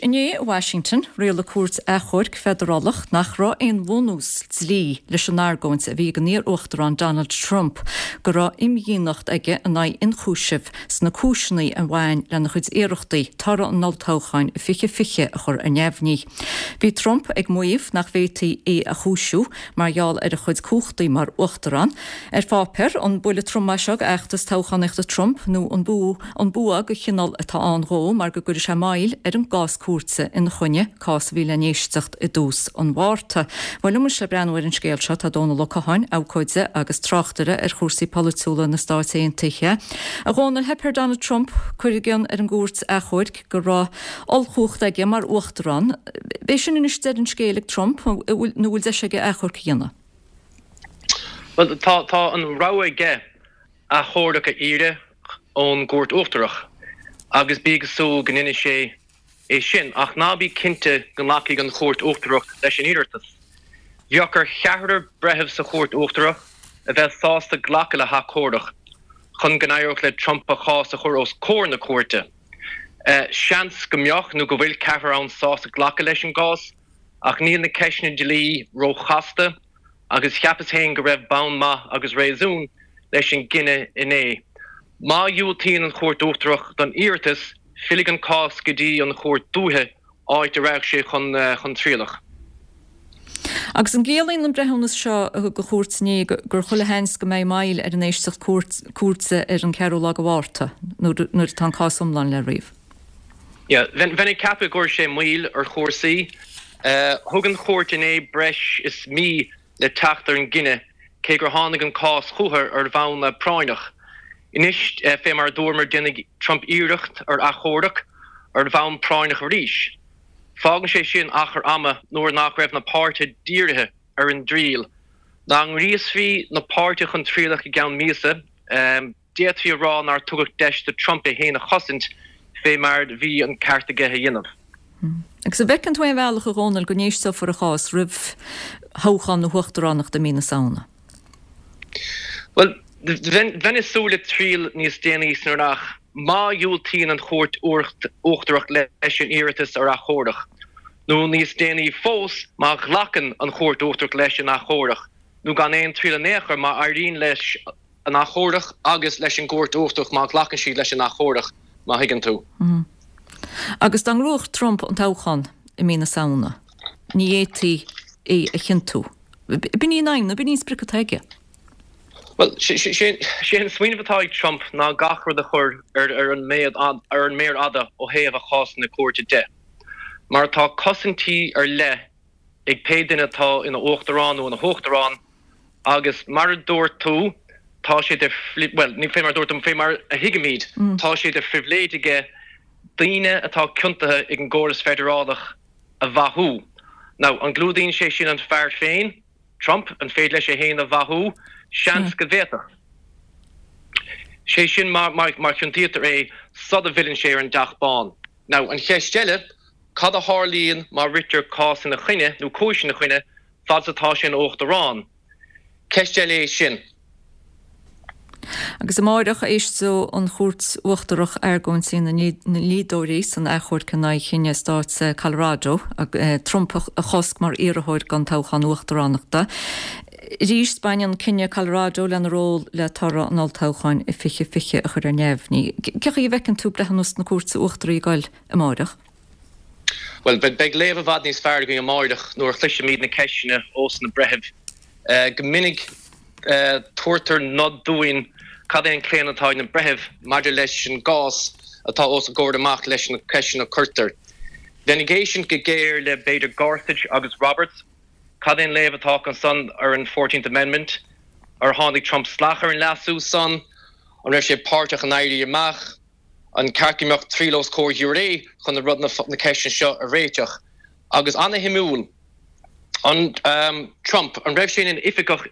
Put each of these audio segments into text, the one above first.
inné i Washington, rialaigh cúirt achomhairc feidearálach nach raibh aon bhunús dlí leis an argóint a bhí ag an iar-uachtarán Donald Trump go raibh imdhíonacht aige in aghaidh ionchúisimh sna cúiseanna a bhain lena chuid iarrachtaí toradh an olltoghcháin i 2020 a chur ar neamhní. Bhí Trump ag maíomh nach bhféadfaí é a chúisiú mar gheall ar a chuid cumhachtaí mar uachtarán. Ar pháipéar, an buille trom é seo d'fheachtas toghchánaíochta Trump nó an an bua de chineál atá ann dhó mar go gcuirfidh sé moill ar an gcás cúirte ina choinne, cás a bhí le n-éisteacht i dtús an Mhárta. Bhuel, liom anois le breathnú ar an scéal seo tá Dónal Ó Catháin, abhcóide agus tráchtaire ar chúrsaí polaitiúla na Stáit Aontaithe. A Dhónaill, theip ar Donald Trump cur i gcionn ar an gcúirt achomhairc go raibh ollchumhacht aige mar uachtarán. B'é sin anois deireadh an scéil ag Trump nó an bhfuil deis aige achomharc a dhéanamh? Bhuel, tá tá an rogha aige achomharc a iarraidh ón gCúirt Uachtarach agus bí ag súil go ndéanfaidh sé é sin, ach ná bí cinnte go nglacfaidh an Chúirt Uachtarach leis an iarratas. Bheadh ar cheathrar breitheamh sa Chúirt Uachtarach a bheith sásta glacadh le hachomharc chun go n-éireodh le Trump a chás a chur os comhair na cúirte. Seans go mbeadh nó go bhfuil ceathrar ann sásta glacadh leis an gcás, ach níl na ceisteanna dlí róchasta agus cheapas féin go raibh bonn maith agus réasún leis an gcinneadh inné. Má dhiúltaíonn an Chúirt Uachtarach don iarratas, fillfidh an cás go dtí an Chúirt Dúiche, áit a rachaidh sé chun trialach. Agus an gciallaíonn an breithiúnas seo a thug an chúirt inné gur chuile sheans go mbeidh moill ar an éisteacht cúirte ar an ceathrú lá de Mhárta, nuair atá an cás iomlán le ríomh? Yeah, bheinn ag ceapadh go gcuirfidh sé moill ar chúrsaí. Thug an chúirt inné breis is mí le teacht ar an gcinneadh, cé gur tháinig an cás chucu ar bhonn práinneach. Anois, fé mar a dúramar, déanfaidh Trump iarracht ar achomharc ar bhonn práinneach arís. Fágann sé sin achar ama nuair nach raibh na páirtithe dírithe ar an dtriail. Dá ngríosfaí na páirtithe chun trialach i gceann míosa, d'fhéadfaí a rá nár tugadh deis do Trump é féin a chosaint fé mar bhí an ceart aige a dhéanamh. Agus an bhfeiceann tú aon bhealach, a Dhónaill, go n-éisteofar a chás roimh thoghchán na huachtaránachta i mí na Samhna? Bhuel, bheinn ag súil le triail níos déanaí san earrach má dhiúltaíonn an Chúirt Uachtarach leis an iarratas ar achomharc, nó níos déanaí fós má ghlacann an Chúirt Uachtarach leis an achomharc, nó gan aon triail in aon chor má éiríonn leis an achomharc agus leis an gCúirt Uachtarach má ghlacann siad leis an achomharc, má thuigeann tú. Agus dá ngnóthódh Trump an toghchán i mí na Samhna, ní fhéadfaí é a chiontú. B'in í an aidhm, nó b'in í an sprioc atá aige. Bhuel, sé an smaoineamh atá ag Trump ná gach rud a chur ar an méar fhada ó thaobh a chásanna cúirte de. Mar tá cosaintí ar leith ag pé duine atá ina uachtarán nó ina huachtarán agus mar a dúirt tú, tá sé de, bhuel, ní fé mar a dúirt tú, fé mar a thuigimid, tá sé de phribhléid aige daoine atá ciontaithe ag an gcóras feidearálach a mhaithiú. Now, an gclúdaíonn sé sin an fear féin, Trump? An féidir leis é féin a mhaithiú? Seans go bhféadfadh. Sé sin má chiontaítear é sula bhfilleann sé ar an dTeach Bán. Now, an cheist eile, cad a tharlaíonn má ritear cás ina choinne, nó cúis ina choinne, fad is atá sé ina uachtarán? Ceist eile é sin. Agus amáireach, éisteoidh an Chúirt Uachtarach argóintí na ndlíodóirí san achomharc in aghaidh chinneadh stáit Colorado Trump a chosc mar iarrthóir don toghchán uachtaránachta. Arís, baineann cinneadh Colorado lena ról le toradh an olltoghcháin i 2020 a chur ar neamhní. Cén chaoi a bhfeiceann tú breithiúnas na Cúirte Uachtaraí ag goil amáireach? Bhuel, beidh léamh i bhfad níos fearr againn amáireach nuair a chloisfimid na ceisteanna ós na breithimh. Go minic tabhartar nod dúinn cad é an claonadh atá ag na breithimh maidir leis an gcás atá os a gcomhair amach leis na ceisteanna a cuirtear. Bheinn ag éisteacht go géar le b'fhéidir Gorsuch agus Roberts. Cad é an léamh atá acu san ar an Fourteenth Amendment? Ar tháinig Trump salach ar an leasú san? An raibh sé páirteach in éirí amach? An ceart go mbeadh triail os comhair ghiúiré chun na rud na ceisteanna seo a réiteach? Agus ana-shuimiúil, an Trump, an raibh sé ina oifigeach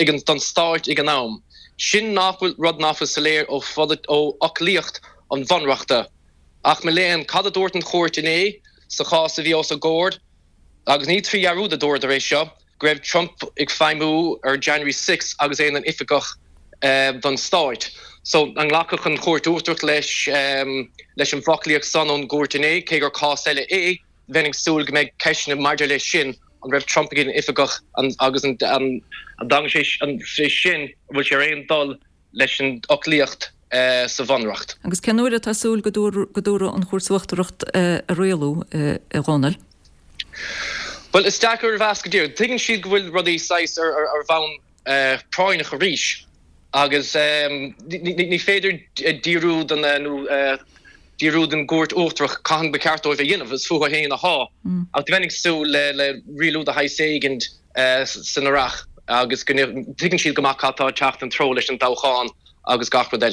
ag an don stáit ag an am? Sin nach bhfuil rud nach bhfuil soiléir ó ó fhoclaíocht an bhunreachta. Ach mo léan, cad a dúirt an chúirt inné sa chás a bhí os a gcomhair? Agus ní trí dhearúd a dúradar é seo, go raibh Trump ag feidhmiú ar January 6 agus é ina oifigeach don stáit. So, an nglacfadh an Chúirt Uachtarach leis leis an bhfoclaíocht san ón gcúirt inné, cé gur cás eile é, bheinn ag súil go mbeidh ceisteanna maidir leis sin, an raibh Trump ina oifigeach agus an dtagann sé sin, an bhfuil sé ar aon dul leis an fhoclaíocht sa Bhunreacht. Agus cén uair atá súil go dtabharfaidh an Chúirt Uachtarach a rialú, a Dhónaill? Bhuel, is deacair a mheas go díreach. Tuigeann siad go bhfuil rudaí saghas ar bhonn práinneach arís agus ní féidir díriú den nó díriú den gCúirt Uachtarach cathain ba cheart dóibh a dhéanamh, is fúthu féin athá. Ach bheinn ag súil le rialú de shaghas éigin san earrach agus go dtuigeann siad go maith cad tá ag teacht ina dtreo leis an toghchán agus gach rud eile.